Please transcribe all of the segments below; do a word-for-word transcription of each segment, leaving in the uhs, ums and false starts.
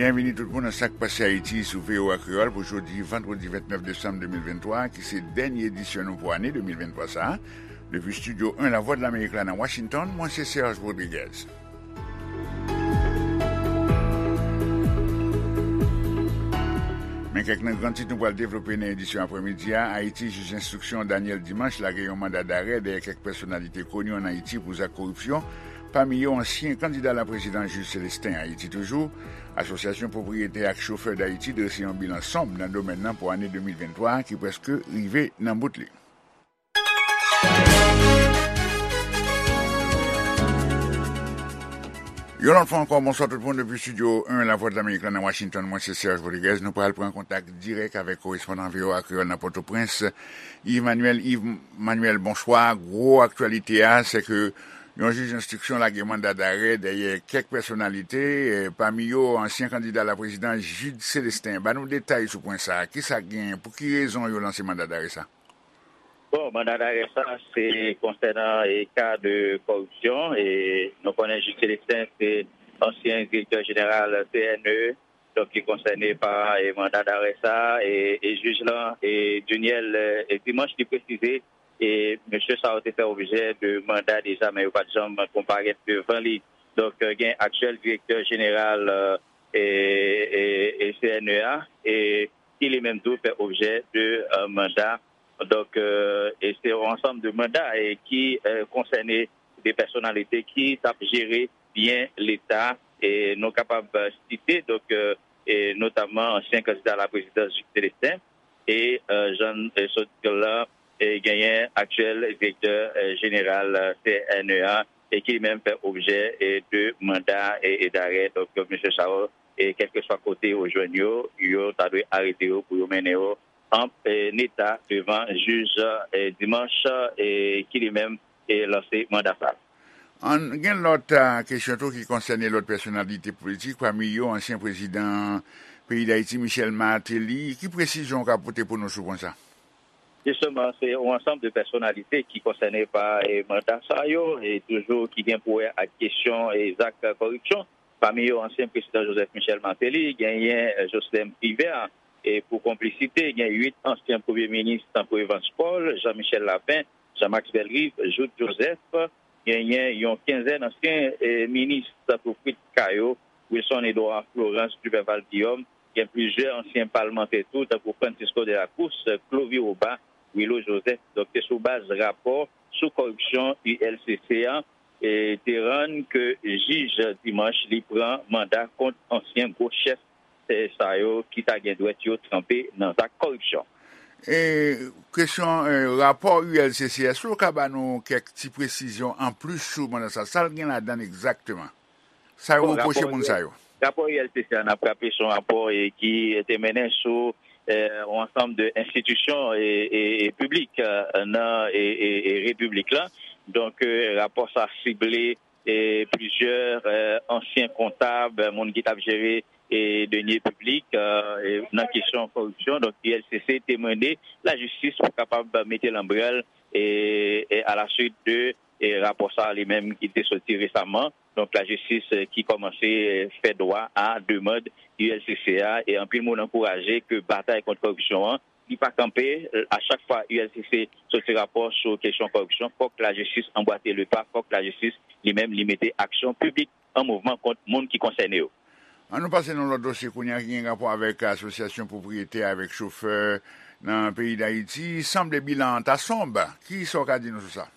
Byenvini tout moun nan Sa k Pase Ayiti sou V O A Kreyòl pou jodi vandredi vennèf desanm de mil venntwa, ki se dènye edisyon nou pou ane de mil venntwa sa a. Depi Estidyo en Lavwadlamerik la nan Washington, mwen se Serge Rodriguez. Men kèk nan gran tit nou pral devlope nan edisyon aprèmidi a. Ayiti, jij enstriksyon Daniel Dimanche lage yon manda darè dèyè kèk pèsonalite koni ann Ayiti pou zak koripsyon, pami yo ansyen kandida laprezidans Jude Célestin. Ayiti toujou, Asosyasyon Pwopriyetè ak Chofè Dayiti drese yon bilan sonb nan domèn nan pou ane de mil venntwa a ki prèske rive nan bout li. Yon lòt fwa ankò, bonswa tout moun depi Estidyo en Lavwadlamerik la nan Washington. Mwen se Serge Rodriguez. Nou pral pran kontak dirèk avèk korespondan V O A Kreyòl nan Pòtoprens, Yves Manuel. Yves Manuel, bonswa. Gwo aktyalite a, se ke yon jij enstriksyon lage manda darè dèyè kèk pèsonalite, eh, pami yo ansyen kandida laprezidans Jude Célestin. Ban nou detay sou pwen sa a. Kisa k genyen? Pou ki rezon yo lanse manda darè sa? Bon, manda darè sa, se konsènan e ka de kòripsyon. E nou konnen Jude Célestin se ansyen direktè jeneral C N E, donk ki konsène pa e manda darè sa. E, e jij lan, e Duniel, e Dimanche, li presize, e mesye sa yo te fè objè de manda deja, men yo pa t janm konparèt devan li. Donk, gen aktyèl direktè jeneral, e, e, e C N E a, e ki li menm tou fè objè de, e, manda. Donk, e, e se yon ansanm de manda, e ki, e, konsène de pèsonalite ki t ap jere byen Leta. E nou kapab, e, site, donk, e, e notamman ansyen kandida laprezidans Jude Célestin, e, e, jan, e, sot di l la, e genyen aktyèl direktè, e, jeneral, e, C N E a, e ki li menm fè objè, e, de manda, e, e darè. Donk, mesye sa yo, e kèlkeswa kote yo jwenn yo, yo ta dwe arete yo pou yo mennen yo an, e, neta devan jij, e, Dimanche, e ki li menm, e, lanse manda sa. Ann, gen lòt, a, kesyon tou ki konsène lòt pèsonalite politik, pami yo ansyen prezidan peyi Dayiti, Michel Martelly. Ki presizyon w ka pote pou nou sou pwen sa? Jisteman, se yon ansanm de pèsonalite ki konsène pa, e, manda sa yo, e toujou ki gen pou wè ak kesyon, e, zak kòripsyon. Pami yo, ansyen prezidan Joseph Michel Martelly, genyen, e, Jocelerme Privert, e pou konplisite, gen uit ansyen premye minis, tankou Evans Paul, Jean Michel Lapin, Jean Max Bellerive, Jouthe Joseph, genyen yon kenzèn ansyen, e, minis, tankou Fritz Caillaux, Wilson Edouard, Florence Duperval Guillaume, gen plizyè ansyen palmantè tou, tankou Francisco de la Cruz, Clovy Roba, Willo Joseph. Donk, se sou baz rapò sou kòripsyon U L C C a, e, te rann ke jij Dimanche li pran manda kont ansyen gwo chèf, e, sa yo ki ta gen dwèt yo tranpe nan zak kòripsyon. E, kesyon, e, rapò U L C C, èske w ka ba nou kèk ti presizyon anplis sou manda sa? Sa l gen ladan l egzakteman? Sa yo Bon, repwoche rapò moun sa yo? Rapò U L C C a, n ap raple, se yon rapò, e, ki te mennen sou, e, yon ansanm de enstitisyon, e, e, e piblik, e, nan, e, e, e repiblik la. Donk, e, rapò sa sible, e, plizyè, e, ansyen kontab, moun ki t ap jere, e, denye piblik, e, e nan kesyon kòripsyon. Donk, U L C C te mande lajistis pou kapab mete lanbrèl, e, e alaswit de, e, rapò sa li menm ki te soti resaman. Donk, lajistis, e, ki kòmanse, e, fè dwa a demann U L C C a, e anpil moun ankouraje ke batay kont kòripsyon an, li pa kanpe, e, a chak fwa U L C C soti rapò sou kesyon kòripsyon, fòk lajistis anbwate le pa, fòk lajistis li menm li mete aksyon piblik an mouvman kont moun ki konsène yo. Ann nou pase nan lòt dosye kounye a ki gen rapò avèk asosyasyon pwopriyetè avèk chofè nan peyi Dayiti. Sanble bilan an ta sonb. Kisa w ka di nou sou sa?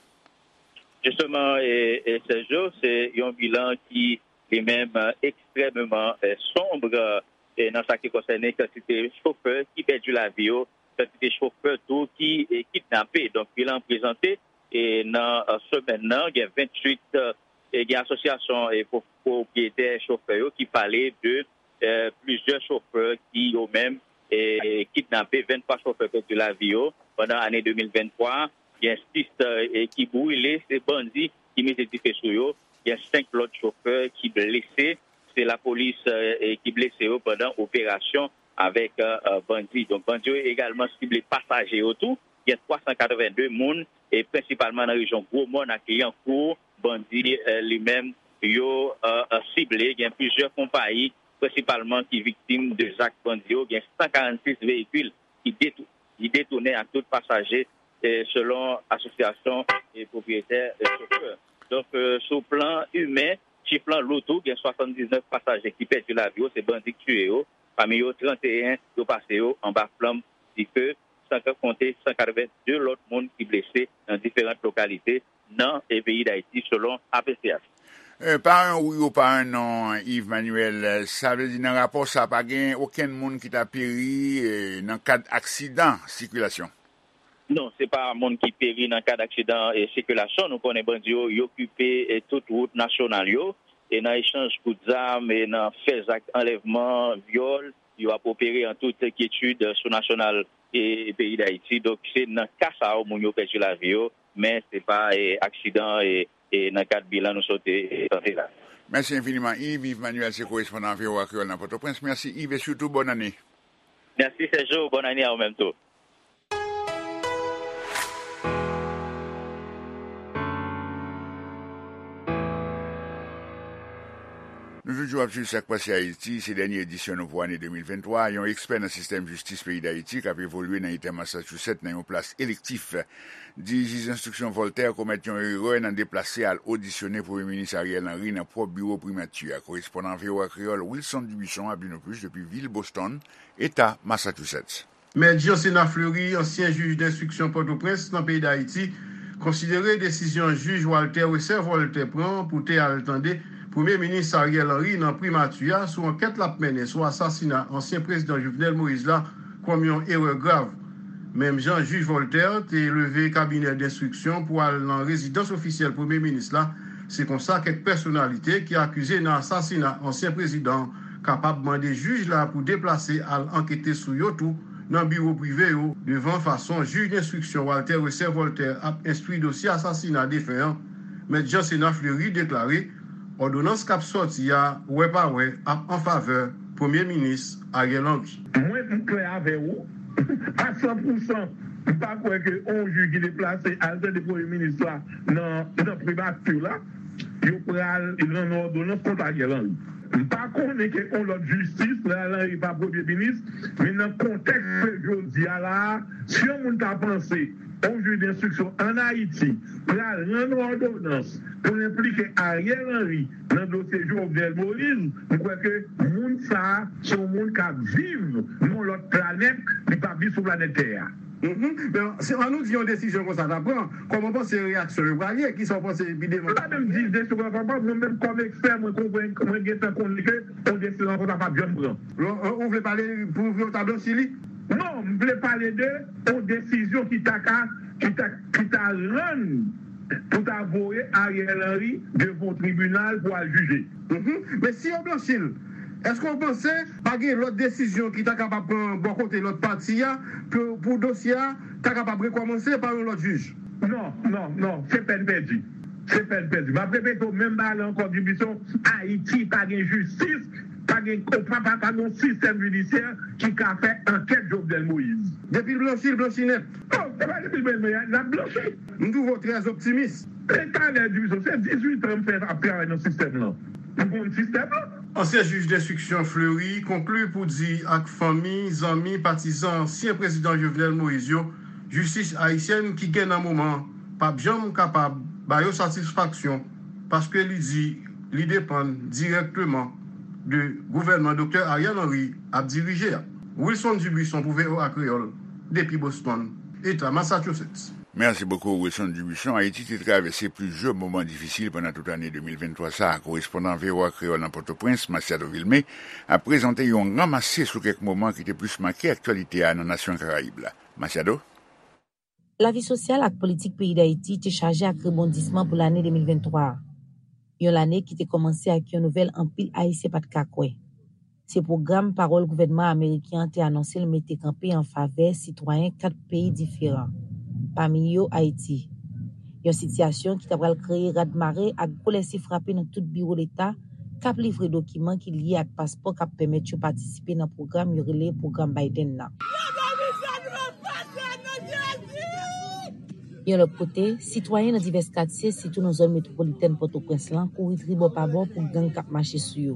Jisteman, e, e Sergio, se yon bilan ki li menm, e, ekstrèmeman, e, sonb, e, nan sa ki konsène kantite chofè ki pèdi lavi yo, kantite chofè tou ki, e, kidnape. Donk, bilan prezante, e, nan, e, semèn nan, gen venntuit, e, gen asosyasyon, e, pwo-, pwopriyetè chofè yo ki pale de, e, plizyè chofè ki yo menm, e, kidnape, venntwa chofè pèdi lavi yo pandan ane de mil venntwa, gen sis, e, ki brile, se bandi ki mete dife sou yo, gen senk lòt chofè ki blese, se lapolis, e, e ki blese yo pandan operasyon avèk, e, e, bandi. Donk, bandi yo egalman sible pasaje yo tou. Gen twa san katreven de moun, e prensipalman nan rejyon Gwomòn ak Lyankou, bandi, e, li menm, yo, e, e, sible. Gen plizyè konpayi, prensipalman ki viktim de zak bandi yo, gen san karannsis veyikil ki detou-, ki detounen ak tout pasaje, eh, selon asosyasyon, eh, pwopriyetè, eh, chofè. Donk, eh, sou plan imen, chif lan lou tou, gen swasanndiznèf pasaje ki pèdi lavi yo, se bandi k tiye yo, pami yo tranteyen yo pase yo anba flanm dife, san ka konte san katrevenndi lòt moun ki blese nan diferan lokalite nan, eh, peyi Dayiti, selon A P C H. Eh, pa yon wi ou pa yon non, Yves Manuel, eh, sa vle di nan rapò sa pa gen okenn moun ki ta peri, eh, nan kad aksidan sikilasyon? Non, se pa moun ki peri nan kad aksidan, eh, sikilasyon. Nou konnen bandi yo, yo okipe, eh, tout wout nasyonal yo, e nan echanj kout zam, e nan fè zak anlèvman, vyòl, yo ap opere an tout kyetid sou nasyonal e peyi Dayiti. Donk, se nan ka sa yo moun yo pèdi lavi yo, men se pa, eh, aksidan, eh, eh, nan kad bilan nou sot, eh, tande la. Mèsi enfiniman, Yves. Yves Manuel se korespondan V O A Kreyòl nan Pòtoprens. Mèsi, Yves, e sitou bòn ane. Mèsi, Sergio. Bòn ane a ou menm tou. Nou toujou ap swiv sa k pase Ayiti, se dènye edisyon nou pou ane de mil venntwa. Yon ekspè nan sistèm jistis peyi Dayiti k ap evolye nan eta Massachusetts nan yon plas elektif di jij enstriksyon Voltaire komèt yon erè nan deplase al odisyone Premye Minis Ariel Henry nan pwòp biwo primati a. Korespondan V O A Kreyòl Wilson Dubuisson ap di nou plis depi vil Boston, eta Massachusetts. Mèt Jean Sénat Fleury, ansyen jij denstriksyon Pòtoprens nan peyi Dayiti, konsidere desizyon jij Walter Wesser Voltaire pran pou te al tande Premye Minis Ariel Henry nan primati a sou ankèt l ap mennen sou asasina ansyen prezidan Jovenel Moïse la kòm yon erè grav. Menm jan jij Voltaire te leve kabinè denstriksyon pou al nan rezidans ofisyèl Premye Minis la, se konsa kèk pèsonalite ki akize nan asasina ansyen prezidan kapab mande jij la pou deplase al ankete sou yo tou nan biwo prive yo. Devan fason jij denstriksyon Walter Wesser Voltaire ap enstwi dosye asasina defen an, Mèt Jean Sénat Fleury deklare òdonans k ap sòti a, wè pa wè, ap an favè Premye Minis Ariel Henry. Mwen, m klè avè ou, a san pou san, m pa kwè ke yon jij ki deplase al tande Premye Minis la nan, nan primati la, yo pral rann òdonans kont Ariel Henry. M pa konnen ke yon lòt jistis, Ariel Henry pa premye minis, men nan kontèks ke jodi a la a, si yon moun ta panse yon jij denstriksyon ann Ayiti pral rann òdonans pou l enplike Ariel Henry nan dosye Jovenel Moïse, m kwè ke moun sa a se yon moun k ap viv nan yon lòt planèt, li p ap viv sou planèt tè a. Mhm. Men, si, an nou di yon desizyon konsa ta pran, kòman w panse reyaksyon yo pral ye? Kisa w panse epi demen? Mwen pa menm di desizyon konsa ta pran, mwen menm kòm ekspè, mwen konprann, mwen gentan konnen ke yon desizyon konsa p ap janm pran. Ou, ou vle pale pou yo ta blanchi li? Non, m vle pale de yon desizyon ki ta ka, ki ta, ki ta rann pou ta voye Ariel Henry devan yon tribinal pou al jije. Mhm. Men si yo blanchi l, èske w panse pa gen lòt desizyon ki ta kapab pran bò kote lòt pati a pou, pou dosye a ta kapab rekòmanse pa yon lòt jij? Non, non, non, se pèn pèdi. Se pèn pèdi. M ap repete w menm bagay la ankò, Dubuisson, Ayiti pa gen jistis, pa gen, pa, pa, pa gen yon sistèm jidisyè ki ka fè ankèt Jovenel Moïse. Depi l blanchi, l blanchi nèt. Non, se pa depi l blanchi, l ap blanchi. M twouve w trè optimis. E talè, Dubuisson, se dizuit an m fè ap travay nan sistèm lan. M konn sistèm lan. Ansyen jij denstriksyon Fleury konkli pou di ak fanmi, zanmi, patizan ansyen prezidan Jovenel Moïse yo, jistis ayisyèn ki gen nan moman p ap janm kapab ba yo satisfaksyon, paske li di li depann dirèkteman de gouvènman Doktè Ariel Henry ap dirije a. Wilson Dubuisson pou V O A Kreyòl, depi Boston, Eta Massachusetts. Merci beaucoup, Wilson Dubuisson. Ayiti te travèse plizyè moman difisil pandan tout ane de mil venntwa sa a. Korespondan V O A Kreyòl nan Pòtoprens, Masiado Vilmé, ap prezante yon ranmase sou kèk moman ki te plis make aktyalite a nan nasyon Karayib la. Masiado? Lavi sosyal ak politik peyi Dayiti te chaje ak rebondisman pou lane de mil venntwa a. Yon lane ki te kòmanse ak yon nouvèl anpil Ayisyen pa t ka kwè. Se pwogram pawòl gouvènman ameriken an te anonse l mete kanpe an favè sitwayen kat peyi diferan, pami yo Ayiti. Yon sitiyasyon ki ta pral kreye radmare ak gwo lèse frape nan tout biwo leta k ap livre dokiman ki lye ak paspò k ap pèmèt yo patisipe nan pwogram yo rele pwogram Biden nan. Yon lòt kote, sitwayen nan divès katye, sitou nan zòn metwopolitèn Pòtoprens lan, kouri tribò pa bò pou gang k ap mache sou yo.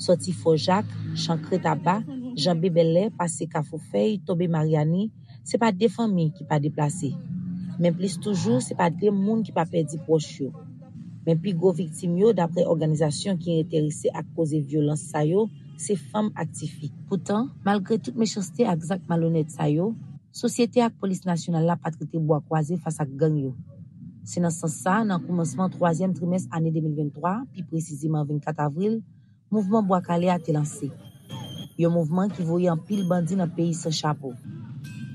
Sòti Fò Jak, Chankre Taba, janbe Bèlè, pase Kafou Fèy, tonbe Maryani, se pa de fanmi ki pa deplase. Men plis toujou, se pa de moun ki pa pèdi pwòch yo. Men pi gwo viktim yo, daprè òganizasyon ki enterese ak koze vyolans sa yo, se fanm ak tifi. Poutan, malgre tout mechanste ak zak malonèt sa yo, sosyete ak polis nasyonal la pa t rete bwa kwaze fas ak gang yo. Se nan sans sa, nan koumansman twazyèm trimès ane de mil venntwa, pi presizeman vennkat avril, mouvman Bwa Kale a te lanse. Yon mouvman ki voye anpil bandi nan peyi san chapo.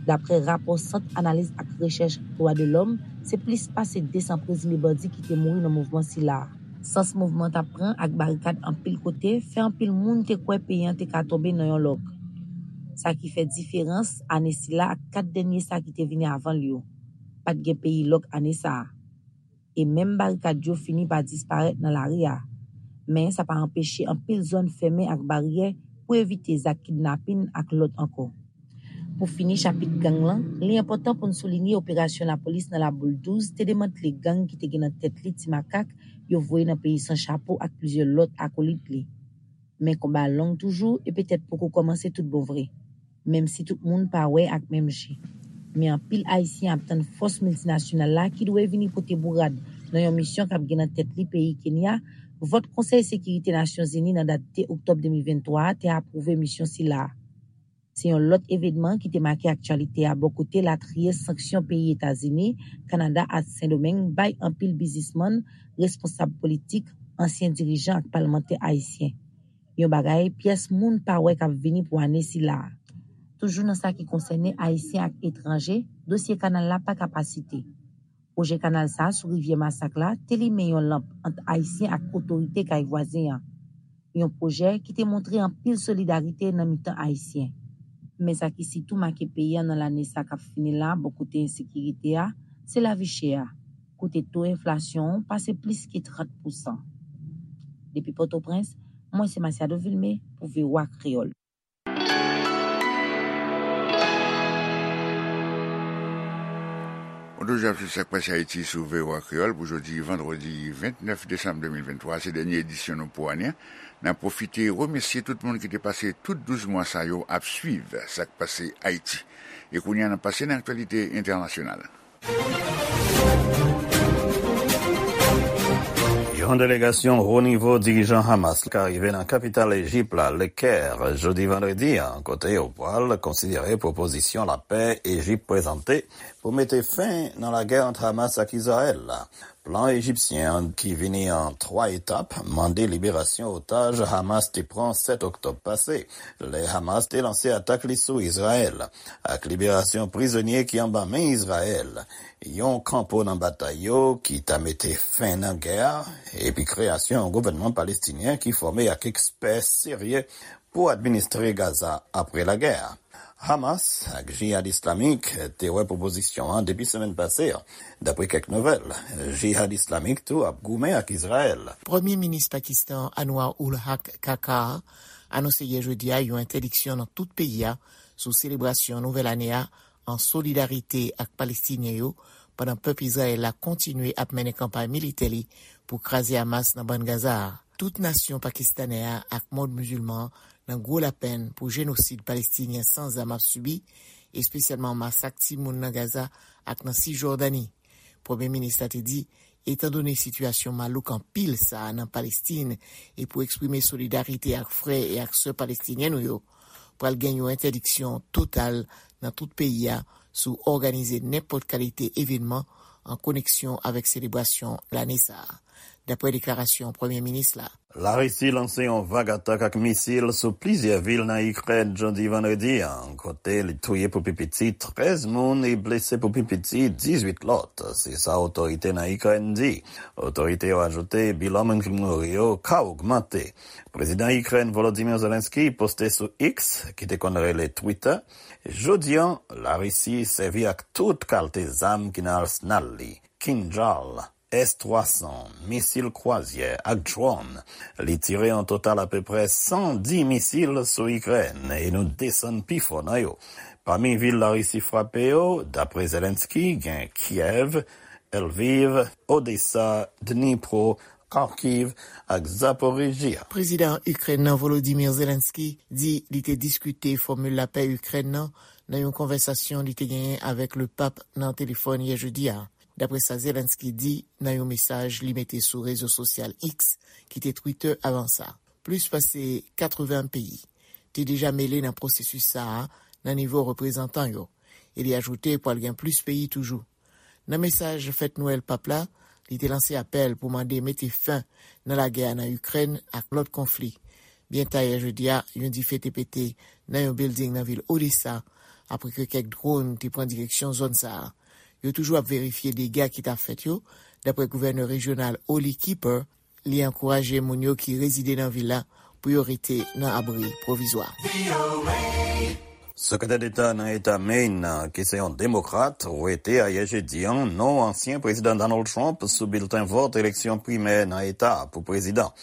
Daprè rapò Sant Analiz ak Rechèch Dwa de Lòm, se plis pase de san prezime bandi ki te mouri nan mouvman sila a. Sans mouvman t ap pran ak barikad anpil kote fè anpil moun te kwè peyi an te ka tonbe nan yon lòk. Sa ki fè diferans, ane sila ak kat dènye sa ki te vini avan l yo. Pa t gen peyi lòk ane sa a. E menm barikad yo fini pa disparèt nan lari a. Men sa pa anpeche anpil zòn fèmen ak baryè pou evite zak kidnapin ak lòt ankò. Pou fini chapit gang lan, li enpòtan pou n soulinye operasyon lapolis nan Laboul douz te demantle gang ki te gen nan tèt li Ti Makak yo voye nan peyi san chapo ak plizyè lòt akolit li. Men konba a long toujou e petèt poko kòmanse tout bon vre, menm si tout moun pa wè ak menm je. Men anpil Ayisyen ap tann fòs miltinasyonal la ki dwe vini pote bourad nan yon misyon k ap gen nan tèt li peyi Kenya, vòt Konsèy Sekirite Nasyonzini nan dat de oktòb de mil venntwa a te apwouve misyon sila a. Se yon lòt evènman ki te make aktyalite a bò kote latriye sanksyon peyi Etazini, Kanada ak Sendomeng bay anpil biznismann, responsab politik, ansyen dirijan ak palmantè ayisyen. Yon bagay pyès moun pa wè k ap vini pou ane sila a. Toujou nan sa ki konsène Ayisyen ak etranje, dosye kanal la pa ka pa site. Pwojè kanal sa a sou rivyè Masak la te limen yon lanp ant Ayisyen ak otorite kay vwazen an. Yon pwojè ki te montre anpil solidarite nan mitan Ayisyen. Men sa ki sitou make peyi a nan lane sa k ap fini la bò kote ensekirite a, se lavi chè a, kote to enflasyon an pase plis ke trant pousan. Depi Pòtoprens, mwen se Masiado Vilmé pou V O A Kreyòl. Ou toujou ap swiv Sak Pase Ayiti sou V O A Kreyòl pou jodi vandredi vennèf desanm de mil venntwa. Se dènye edisyon nou pou ane an. N ap pwofite remèsye tout moun ki te pase tout douz mwa sa yo ap swiv Sak Pase Ayiti. E kounye a, n ap pase nan aktyalite entènasyonal. Yon delegasyon wo nivo dirijan Hamas ka rive nan kapital Ejip la, Le Caire, jodi vandredi an, kote yo pral konsidere pwopozisyon lapè Ejip prezante pou mete fen nan lagè ant Hamas ak Izrayèl la. Plan ejipsyen an, ki vini an twa etap, mande liberasyon otaj Hamas te pran sèt oktòb pase, lè Hamas te lanse atak li sou Izrayèl, ak liberasyon prizonye ki anba men Izrayèl, yon kanpo nan batay yo ki ta mete fen nan gè a, epi kreyasyon yon gouvènman palestinyen ki fòme ak ekspè serye pou administre Gaza apre lagè a. Hamas ak Jihad Islamik te wè pwopozisyon an depi semèn pase a. Dapre kèk nouvèl, Jihad Islamik tou ap goumen ak Izrayèl. Premye minis Pakistan Anwar ul Haq Kakar anonse yè jedi a yon entèdiksyon nan tout peyi a sou selebrasyon nouvèl ane a an solidarite ak Palestinyen yo, pandan pèp Izrayèl la kontinye ap mennen kanpay militè li pou kraze Hamas nan bann Gaza a. Tout nasyon pakistanè a ak mond mizilman an nan gwo lapenn pou jenosid Palestinyen san zam ap sibi, espesyalman masak timoun nan Gaza ak nan Sijòdani. Premye minis la te di, etandone sitiyasyon malouk anpil sa a nan Palestin, e pou eksprime solidarite ak frè e ak sè palestinyen nou yo, pral gen yon entèdiksyon total nan tout peyi a sou òganize nenpòt kalite evènman an koneksyon avèk selebrasyon lane sa a, dapre deklarasyon premye minis la. Larisi lanse yon vag atak ak misil sou plizyè vil nan Ikrèn jodi vandredi an, kote li touye pou pi piti trèz moun e blese pou pi piti dizuit lòt, se sa otorite nan Ikrèn di. Otorite yo ajoute bilan moun ki mouri yo ka ogmante. Prezidan Ikrèn Volodymyr Zelensky poste sou X, ki te konn rele Twitter, jodi an, Larisi sèvi ak tout kalte zam ki nan alsnal li, Kinjal, S twa san, misil kwazyè ak dwòn. Li tire an total apeprè san dis misil sou Ikrèn e nou desann pi fò nan yo. Pami vil Larisi frape yo, dapre Zelensky, gen Kiev, Lviv, Odesa, Dnipro, Kharkiv ak Zaporizhzhia. Prezidan Ikrèn nan Volodymyr Zelensky di li te diskite fòmil lapè Ikrèn nan nan yon konvèsasyon li te genyen avèk Lepap nan telefòn yè jedi a, dapre sa Zelensky di nan yon mesaj li mete sou rezo sosyal X, ki te Twitter avan sa. Plis pase katreven peyi te deja mele nan pwosesis sa a nan nivo reprezantan yo, e li ajoute pral gen plis peyi toujou. Nan mesaj fèt Nwèl Pap la, li te lanse apèl pou mande mete fen nan lagè a nan Ikrèn ak lòt konfli. Byen ta yè jedi a, yon dife te pete nan yon bilding nan vil Odessa, apre ke kèk dwòn te pran direksyon zòn sa a. Yo toujou ap verifye dega ki ta fèt yo, dapre gouvènè rejyonal Olly Kipper, li ankouraje moun yo ki rezide nan vil la pou yo rete nan abri pwovizwa. Sekretè Deta nan Eta Maine, ki se yon demokrat, wete ayè jedi a non ansyen prezidan Donald Trump sou bilten vòt eleksyon primè nan eta a pou prezidan,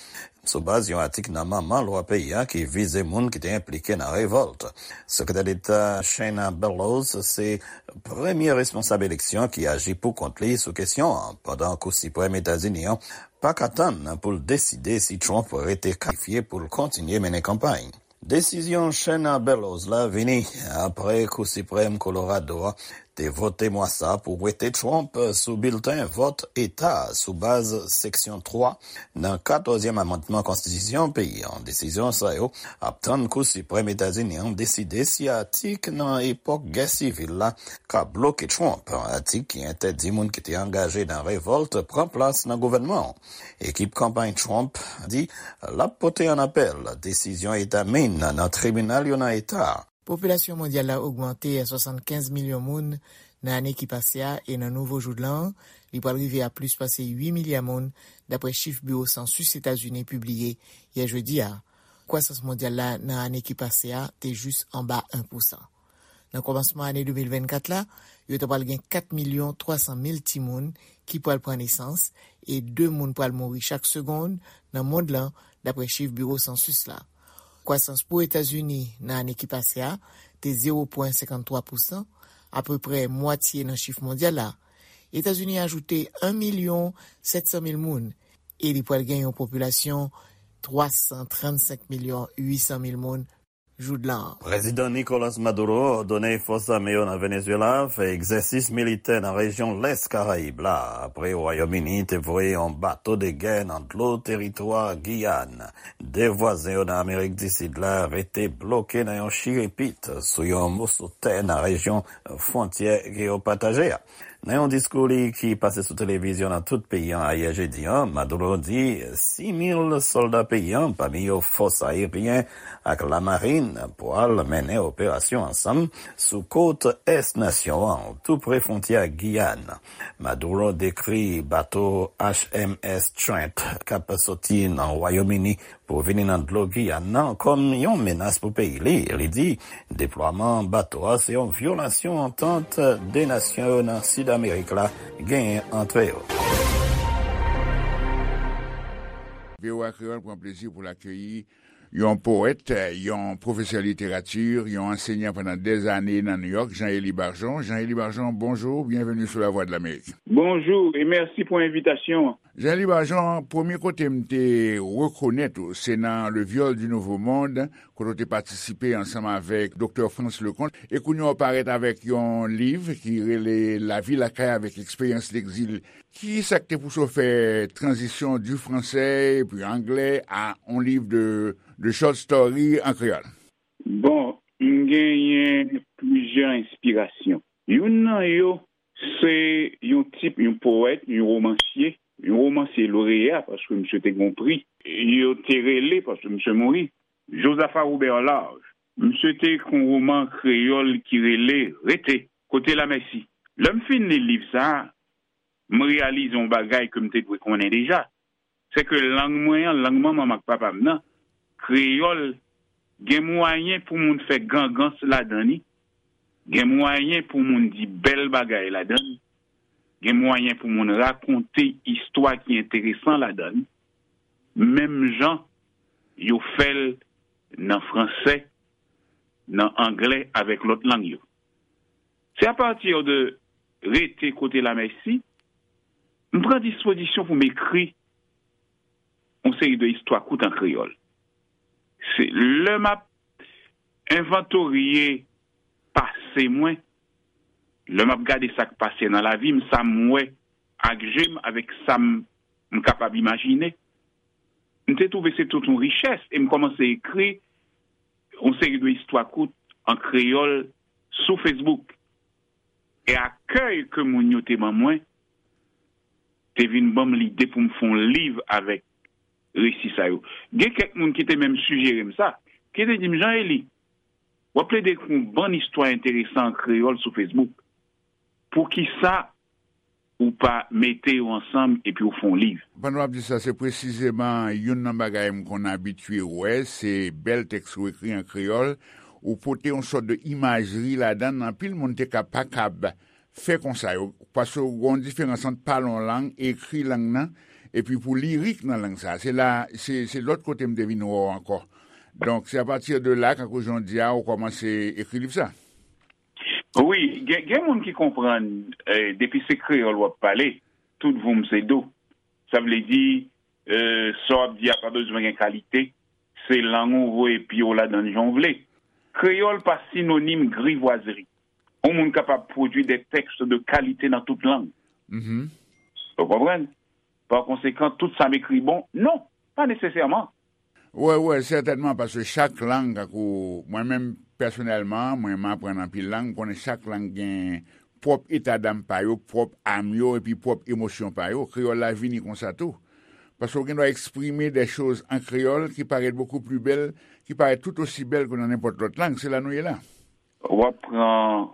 sou baz yon atik nan Manman Lwa peyi a ki vize moun ki te enplike nan revòlt. Sekretè Deta Shenna Bellows se premye responsab eleksyon ki aji pou kont li sou kesyon an, pandan Kou Siprèm Etazini an pa ka tann pou l deside si Trump rete kalifye pou l kontinye mennen kanpay. Desizyon Shenna Bellows la vini apre Kou Siprèm Kolorado a te vote mwa sa a pou wete Trump sou bilten vòt eta a sou baz seksyon twa nan katòzyèm amannman konstitisyon peyi an. Desizyon sa yo ap tann Kou Siprèm Etazini an deside si atik nan epòk gè sivil la ka bloke Trump, atik ki entèdi moun ki te angaje nan revòlt pran plas nan gouvènman an. Ekip kanpay Trump di l ap pote an apèl desizyon Eta Maine nan tribinal yo nan eta a. Popilasyon mondyal la ogmante a swasannkenz milyon moun nan ane ki pase a, e nan nouvo jou de lan an, li pral rive a plis pase uit milya moun, dapre chif Biwo Sansis Etazini pibliye yè jedi a. Kwasans mondyal la nan ane ki pase a te jis anba en pousan. Nan kòmansman ane de mil vennkat la, yo ta pral gen kat milyon twa san mil timoun ki pral pran nesans, e de moun pral mouri chak segonn nan mond lan, dapre chif Biwo Sansis la. Kwasans pou Etazini nan ane ki pase a te zewo pwen senkanntwa pousan, apeprè mwatye nan chif mondyal la. Etazini ajoute en milyon sèt san mil moun, e li pral gen yon popilasyon twa san trannsenk milyon uit san mil moun jou de lan an. Prezidan Nicolas Maduro òdone fòs ame yo nan Venezuela fè egzèsis militè nan rejyon lès Karayib la, apre Wayòm Ini te voye yon bato de gè nan dlo teritwa Giyàn. De vwazen yo nan Amerik di Sid la rete bloke nan yon chirepit sou yon moso tè nan rejyon fwontyè ke yo pataje a. Nan yon diskou li ki pase sou televizyon nan tout peyi an ayè jedi a, Maduro di sis mil sòlda peyi an, pami yo fòs ayeryen ak lamarin, pral mennen operasyon ansanm sou kot ès nasyon an, tou pre fwontyè ak Giyàn. Maduro dekri bato H M S Trent k ap soti nan Wayòm Ini pou vini nan dlo Giyàn nan kòm yon menas pou peyi li. Li di deplwaman bato a se yon vyolasyon antant de nasyon yo nan Sid Amerik la genyen ant yo. V O A Kreyòl pran plezi pou l akeyi yon powèt, yon pwofesè literati, yon ansenyan pandan dèzane nan Nouyòk, Jean Élie Bargeon. Jean Élie Bargeon, bonjou, byenveni sou Lavwadlamerik. Bonjou e mèsi pou envitasyon an. Jean Élie Bargeon, premye kote m te rekonèt ou, se nan Le Viol du Nouveau Monde, kote w te patisipe ansanm avèk Doktè Frantz Leconte, e kounye a w parèt avèk yon liv ki rele Lavi lakay avèk eksperyans legzil. Ki sa k te pouse w fè tranzisyon du français epi anglè a yon liv de, de short story an kreyòl? Bon, m genyen plizyè enspirasyon. Youn nan yo, se yon tip, yon powèt, yon womansye, yon womansye loreya, paske misye te gen yon pri. Yo te rele, paske misye mouri, Josaphat Robert Large. Misye te ekri yon woman kreyòl ki rele Rete, kote lamèsi. Lè m fin li liv sa a, m reyalize yon bagay ke m te dwe konnen deja. Se ke lang mwen an, lang manman m ak papa m nan, kreyòl, gen mwayen pou moun fè gangans ladan li, gen mwayen pou moun di bèl bagay ladan li, gen mwayen pou moun rakonte istwa ki enteresan ladan li, menm jan yo fè l nan fransè, nan anglè avèk lòt lang yo. Se apati de Rete kote lamèsi, m pran dispozisyon pou m ekri yon seri de istwa kout an kreyòl. Se lè m ap envantorye pase mwen, lè m ap gade sa k pase nan lavi m, sa m wè ak je m, avèk sa m, m kapab imajine, m te twouve se tout yon richès e m kòmanse ekri yon seri de istwa kout an kreyòl sou Facebook. E akèy ke moun yo te ban mwen te vin ban m lide pou m fè yon liv avèk resi sa yo. Gen kèk moun ki te menm sijere m sa, ki te di m, "Jean Élie, w ap plede ekri yon bann istwa enteresan an kreyòl sou Facebook. Poukisa ou pa mete yo ansanm epi w fè yon liv?" Pandan w ap di sa, se presizeman youn nan bagay m konn abitye wè, se bèl tèks ou ekri an kreyòl, ou pote yon sòt de imajri ladan l, anpil moun te ka pa kab fè konsa yo, paske w gen yon diferans ant pale yon lang, ekri lang nan, epi pou lirik nan lang sa. Se la, se, se lòt kote m te vin wè w ankò. Donk, se apati de la, kankou jan w di a, ou kòmanse ekri liv sa. Wi, gen, gen moun ki konprann, eh, depi se kreyòl w ap pale, tout voum se do. Sa vle di, eh, sa w ap di a pa bezwen gen kalite, se lang ou voye pye w ladan l jan w vle. Kreyòl pa sinonim grivwazri. Yon moun kapab pwodui de tèks de kalite nan tout lang. Mhm. Ou konprann? Pa konsekan, tout sa m ekri bon? Non, pa nesesèman. Wè, wè, sètènman, paske chak lang, tankou mwen menm pèsonèlman, mwen m aprann anpil lang, m konnen chak lang gen pwòp etadam pa yo, pwòp am yo, epi pwòp emosyon pa yo. Kreyòl la vini konsa tou. Paske w gen dwa eksprime de choz an kreyòl ki parèt beaucoup plus belle, ki parèt tout osi bèl ke nan nenpòt lòt lang. Se la nou ye la. W ap pran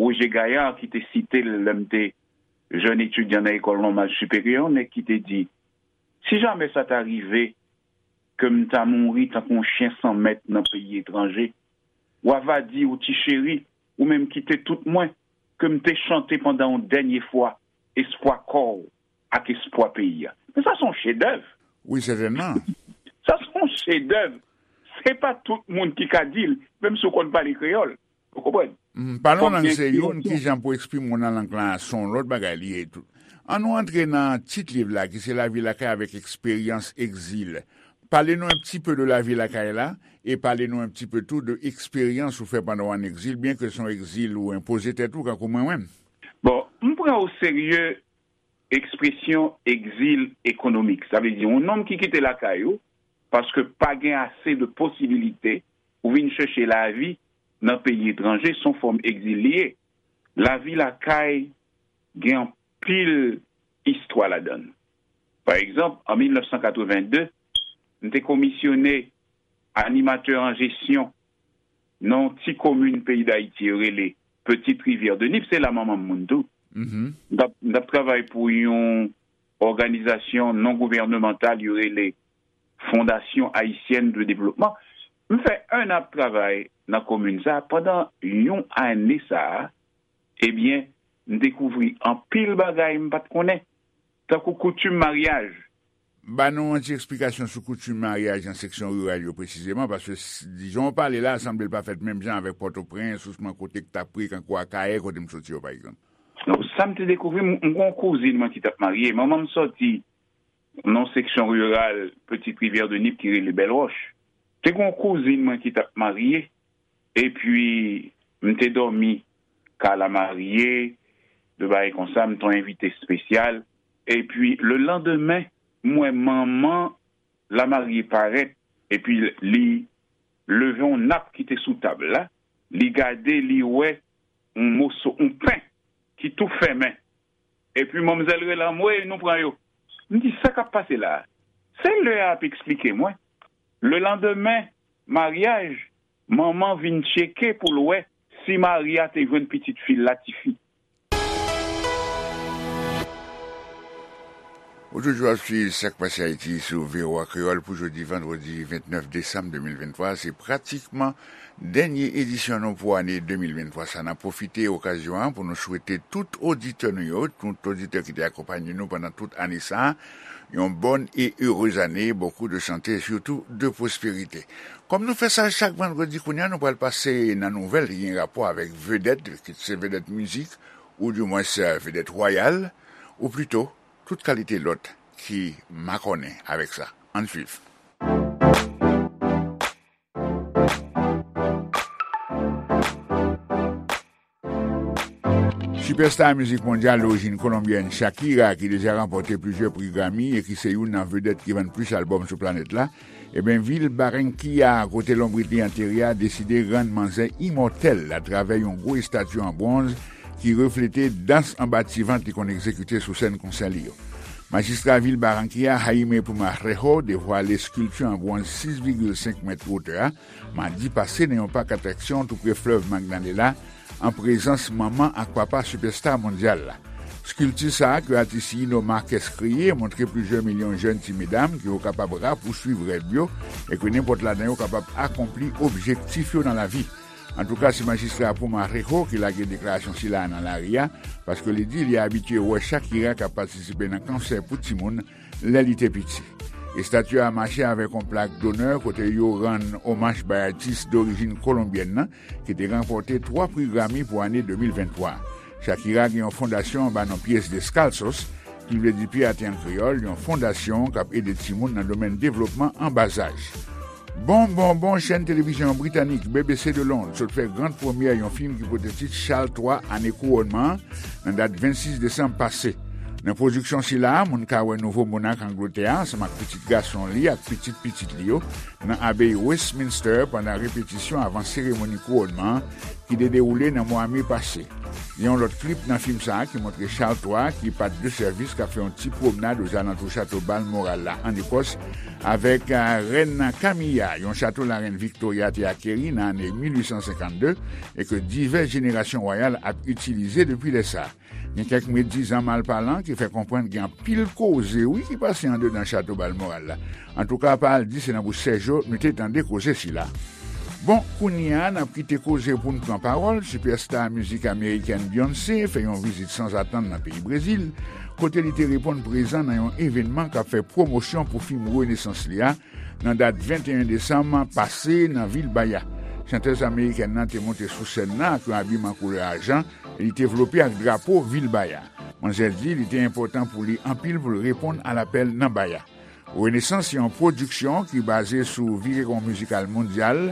Roger Gaillard ki te site l lè m te jèn etidyan nan École Normale Supérieure, nèg ki te di, "Si jamè sa ta rive ke m ta mouri tankou yon chen san mèt nan peyi etranje, w ava di, ou ti cheri, ou menm kite tout mwen, ke m te chante pandan yon dènye fwa espwa kò w ak espwa peyi a." Men sa se yon chedèv. Wi, sètènman. Sa se yon chedèv. Se pa tout moun ki ka di l, menm si w konn pale kreyòl. Ou konprann? Mm, pale yon lang se youn, ki jan pou eksprime w nan lang lan, se yon lòt bagay li ye tou. An nou antre nan tit liv la, ki se Lavi lakay avèk eksperyans egzil. Pale nou un petit peu de lavi lakay la, e pale nou un petit peu tou de eksperyans ou fè pandan w an egzil, byen ke se yon egzil ou enpoze tèt ou, kankou mwen menm. Bon, m pran o serye ekspresyon egzil ekonomik. Sa vle di, yon nonm ki kite lakay ou, paske pa gen ase de posibilite, ou vin chèche lavi nan peyi etranje, se yon fòm egzil li ye. Lavi lakay gen anpil istwa ladan l. Pa egzanp, an mil nèf san katreven de, m te komisyone animatè an jesyon nan yon ti komin peyi Dayiti yo rele Petite Rivière de Nip, se la manman m moun tou. Mhm. M t ap, m t ap travay pou yon òganizasyon non gouvènemantal yo rele Fondation Haïtienne de Développement. M fè en an ap travay nan komin sa a. Pandan yon ane sa a, ebyen, m dekouvri anpil bagay m pa t konnen, tankou koutim maryaj. Ba nou yon ti eksplikasyon sou koutim maryaj nan seksyon riral yo presizeman, paske s-, jan w pale la, sanble l pa fèt menm jan avèk Pòtoprens, ousman kote k t ap pri, kankou Akayè, kote m soti yo, pa egzanp. Donk, sa m te dekouvri, m, m gen yon kouzin mwen ki t ap marye. Manman m soti nan seksyon riral Petite Rivière de Nip ki rele Bèl Wòch. Te gen yon kouzin mwen ki t ap marye, epi m te dòmi kay lamarye, de bagay konsa, m te yon envite espesyal. Epi, le landemen, m wè manman lamarye parèt, epi li leve yon nap ki te sou tab la, li gade, li wè yon moso, yon pen ki tou fèmen. Epi manmzèl rele anmwe, nou pran yo. M di, "Sa k ap pase la a?" Se lè a ap eksplike mwen. Le landemen maryaj, manman vin tcheke pou l wè si Maria te jwenn pitit fi l la, tifi. Ou toujou ap swiv Sa k Pase Ayiti sou V O A Kreyòl pou jodi vandredi vennèf desanm de mil venntwa. Se pratikman dènye edisyon nou pou ane de mil venntwa sa. N ap pwofite okazyon an pou nou swete tout oditè nou yo, tout oditè ki te akonpanye nou pandan tout ane sa a, yon bòn e erez ane, beaucoup de santé et surtout de prospérité. Kòm nou fè sa chak vandredi, kounye a nou pral pase nan nouvèl ki gen rapò avèk vedèt, kit se vedèt mizik, oudimwens vedèt wayal, ou plito tout kalite lòt ki makònen avèk sa. Ann swiv. Sipèsta mizik mondyal dorijin kolonbyèn Shakira, ki deja ranpòte plizyè pri Grammy e ki se youn nan vedèt ki vann plis albòm sou planèt la, ebyen, vil Barranquilla, kote lonbrit li antere a, deside rann manzè imòtèl atravè yon gwo estati an bwonz ki reflete dans anba ti vant li konn egzekite sou sèn konsè li yo. Majistra vil Barranquilla, Jaime Pumarejo, devwale eskilti an bwonz sis vigil senk mèt wotè a, madi pase nan yon pak atraksyon tou pre flèv Magdalena, an prezans manman ak papa sipèsta mondyal la. Eskilti sa a ke atis Yino Marquez kreye montre plizyè milyon jèn ti medam ke yo kapab rapouswiv rèv yo e ke nenpòt ladan yo kapab akonpli objektif yo nan lavi. Antouka, se majistra Pumarejo ki lage deklarasyon sila a nan lari a, paske li di li abitye wè Shakira k ap patisipe nan konsè pou timoun lè li te piti. Estati a mache avèk yon plak donè kote yo rann omaj bay atis dorijin kolonbyèn nan, ki te ranpòte twa pri Grammy pou ane de mil venntwa. Shakira gen yon fondasyon anba non Pies Descalzos, ki vle di pye ate an kreyòl, yon fondasyon k ap ede timoun nan domèn devlopman an bazaj. Bon, bon, bon, chèn televizyon britanik B B C de Lond sot fè gran premyè yon fim ki pote tit Chal twa, ane kouwònman an, nan dat vennsis desanm pase. Nan pwodiksyon sila a, moun ka wè nouvo monak Angletè a ansanm ak pitit gason li ak pitit pitit li yo nan abeyi Westminster pandan repetisyon avan seremoni kouwònman an ki te dewoule nan mwa me pase. Gen yon lòt klip nan fim sa a ki montre Chal twa ki pa t de sèvis k ap fè yon ti pwomnad ozalantou chato Balmoral la ann Ekòs avèk, eh, rèn Camilla, yon chato larèn Victoria te akeri nan ane mil uit san senkannde e ke divès jenerasyon wayal ap itilize depi lè sa a. Gen kèk medizan malpalan ki fè konprann gen anpil koze, wi, ki pase andedan chato Balmoral la. Antouka, pa al di se nan bouch Sèjo nou te tande koze sila. Bon, kounye a, n ap kite koze pou n pran pawòl. Sipèsta mizik amerikèn Beyoncé fè yon vizit sanzatann nan peyi Brezil, kote li te reponn prezan nan yon evènman k ap fè pwomosyon pou fim renesans li a, nan dat venteyen desanm pase nan vil Bahia. Chantèz amerikèn nan te monte sou sèn nan ak yon abiman koulè ajan e li te vlope ak drapo vil Bahia. Manzè di li te enpòtan pou li anpil pou l reponn a lapèl nan Bahia. Renesans se yon pwodiksyon ki baze sou virewon mizikal mondyal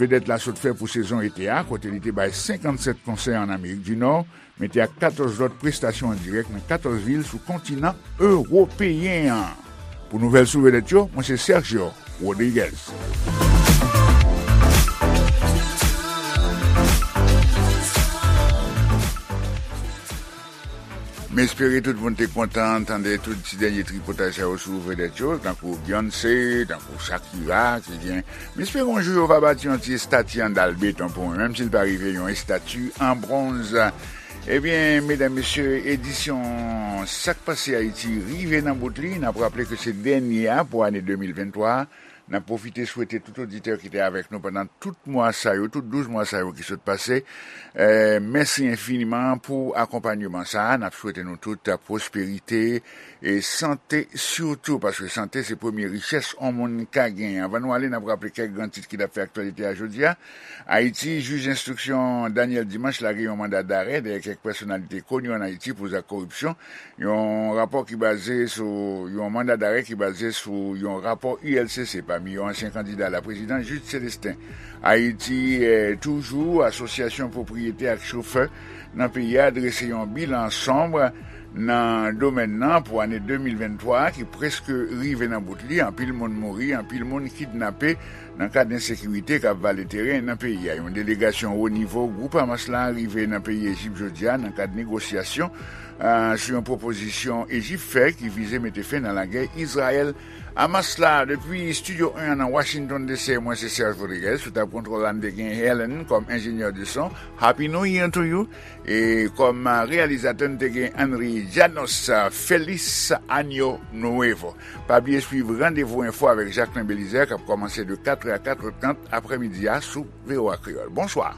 vedèt la sot fè pou sezon ete a, kote li te bay senkannsèt konsè ann Amerik di Nò, mete ak katòz lòt prestasyon an dirèk nan katòz vil sou kontinan ewopeyen an. Pou nouvèl sou vedèt yo, mwen se Sergio Rodriguez. M espere tout moun te kontan tande tout ti dènye tripotay sa yo sou vedèt yo, tankou Beyoncé, tankou Shakira, ki gen. M espere yon jou yo va bati yon ti estati an dal beton pou mwen, menm si l pa rive yon estati an bwonz. Ebyen, medam, mesye, edisyon Sa k Pase Ayiti rive nan bout li. N ap raple ke se dènye a pou ane de mil venntwa. N ap pwofite swete tout oditè ki te avèk nou pandan tout mwa sa yo, tout douz mwa sa yo ki sot pase. Eh, mèsi enfiniman pou akonpayman sa a. N ap swete nou tout pwosperite e sante sitou, paske sante se premye richès yon moun ka genyen. Anvan nou ale, n ap raple kèk gran tit ki t ap fè aktyalite a jodi a. Ayiti, jij enstriksyon Daniel Dimanche lage yon manda darè dèyè kèk pèsonalite koni ann Ayiti pou zak koripsyon. Yon rapò ki baze sou, yon manda darè ki baze sou yon rapò U L C C pami yo ansyen kandida laprezidans Jude Célestin. Ayiti, eh, toujou, asosyasyon pwopriyetè ak chofè nan peyi a drese yon bilan sonb nan domèn nan pou ane de mil venntwa ki prèske rive nan bout li. Anpil moun mouri, anpil moun kidnape nan kad ensekirite k ap vale teren nan peyi a. Yon delegasyon wo nivo gwoup Hamas la rive nan peyi Ejip jodi a nan kad negosyasyon, ah, sou yon pwopozisyon Ejip fè ki vize mete fen nan lagè Izrayèl Hamas la. Depi Estidyo en an nan Washington D C, mwen se Serge Rodriguez. Sou tab kontwòl la, n te gen Helen kòm enjenyè de son. Happy New Year to you. E kòm reyalizatè, n te gen Henry Janos. Feliz Año Nuevo. Pa bliye swiv Randevou Enfo avèk Jacquelin Belizaire k ap kòmanse de katrè a katrè trant aprèmidi a sou V O A Kreyòl. Bonswa.